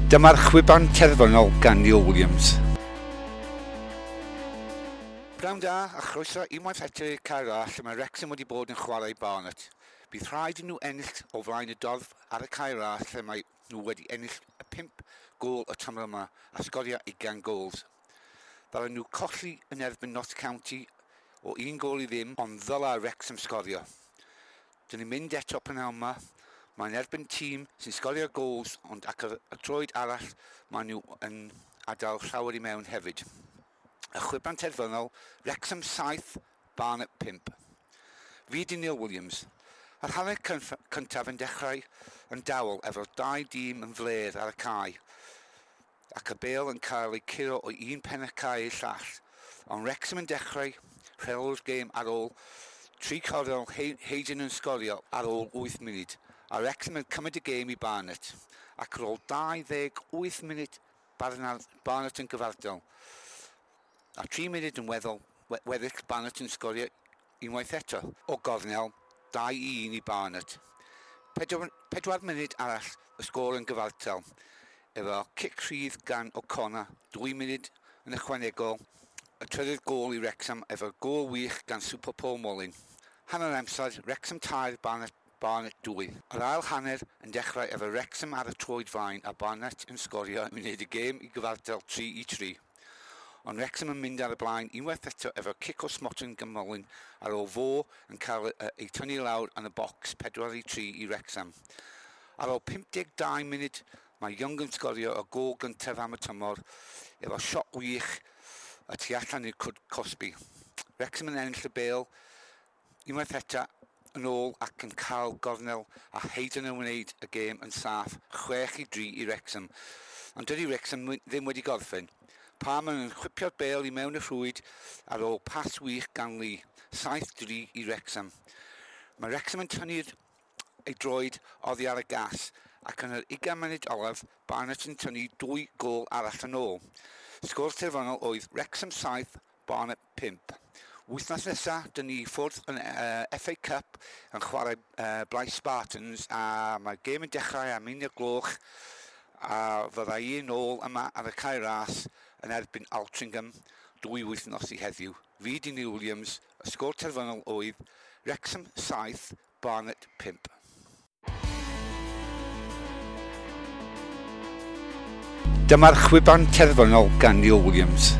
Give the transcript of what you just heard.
Dyma'r chwiban terfynol gan Neil Williams. Pnawn da a chroeso unwaith eto i'r Cae Ras lle mae Wrexham wedi bod yn chwarae Barnet. Bydd rhaid i nhw ennill o flaen y dorf ar y Cae Ras lle mae nhw wedi ennill y 5 gôl y tymor yma a sgorio 20 gols. Ddylen nhw colli yn erbyn Notts County o un gôl i ddim, ond ddyla Wrexham sgorio. Dyn ni'n mynd eto prynhawn yma. Mae'n erbyn tîm sy'n sgorio gols, ond ac ar y troed arall maen nhw yn adael llawer i mewn hefyd. Y chwiban terfynol, Wrexham 7, Barnet 5. Fi di Neil Williams. Yr hanner cyntaf yn dechrau yn dawel efo'r dau dîm yn flêr ar y cae ac y bêl yn cael ei curo o un pen y cae i'r llall. Ond Wrexham yn dechrau rheoli'r gêm ar ôl tri chornel Hayden yn sgorio ar ôl 8 munud, a Wrexham yn cymryd y gêm i Barnet, ac ar ôl 28 munud Barnet yn gyfartal. A 3 munud yn weddol, weddill Barnet yn sgorio unwaith eto. O gornel, 2-1 i Barnet. 4 munud arall y sgôr yn gyfartal. Efo cic rhydd gan O'Connor, 2 munud yn ychwanegol, y trydydd gôl i Wrexham efo gôl wych gan Super Paul Mullin. Hanner amser, Wrexham 3, Barnet 2. Yr ail hanner yn dechrau efo Wrexham ar y troed flaen a Barnet yn sgorio yn wneud y gêm i gyfartal 3-3. Ond Wrexham yn mynd ar y blaen unwaith eto efo cic o smotyn gan Mullin ar ôl fo yn cael ei tynnu lawr yn y bocs 4-3 i Wrexham. Ar ôl 52 munud mae Young yn sgorio y gôl gyntaf am y tymor efo siot wych y tu allan i'r cwrt cosbi. Wrexham yn ennill y bêl unwaith eto yn ôl ac yn cael gornel a Hayden yn wneud y gêm yn saff 6-3 i Wrexham. Ond dydy Wrexham ddim wedi gorffen. Palmer yn chwipio'r bêl i mewn y rhwyd ar ôl pas wych gan Lee, 7-3 i Wrexham. Mae Wrexham yn tynnu'r ei droed oddi ar y gas ac yn yr 20 munud olaf Barnet yn tynnu 2 gôl arall yn ôl. Sgôr terfynol oedd Wrexham 7, Barnet 5. Wythnos nesaf, dyn ni ffwrdd yn FA Cup yn chwarae Blyth Spartans a mae'r gêm yn dechrau am 1 gloch a fydda i yn ôl yma ar y Cae Ras yn erbyn Altrincham 2 wythnos i heddiw. Fi di Neil Williams, y sgôr terfynol oedd Wrexham 7, Barnet 5. Dyma'r chwiban terfynol gan Neil Williams.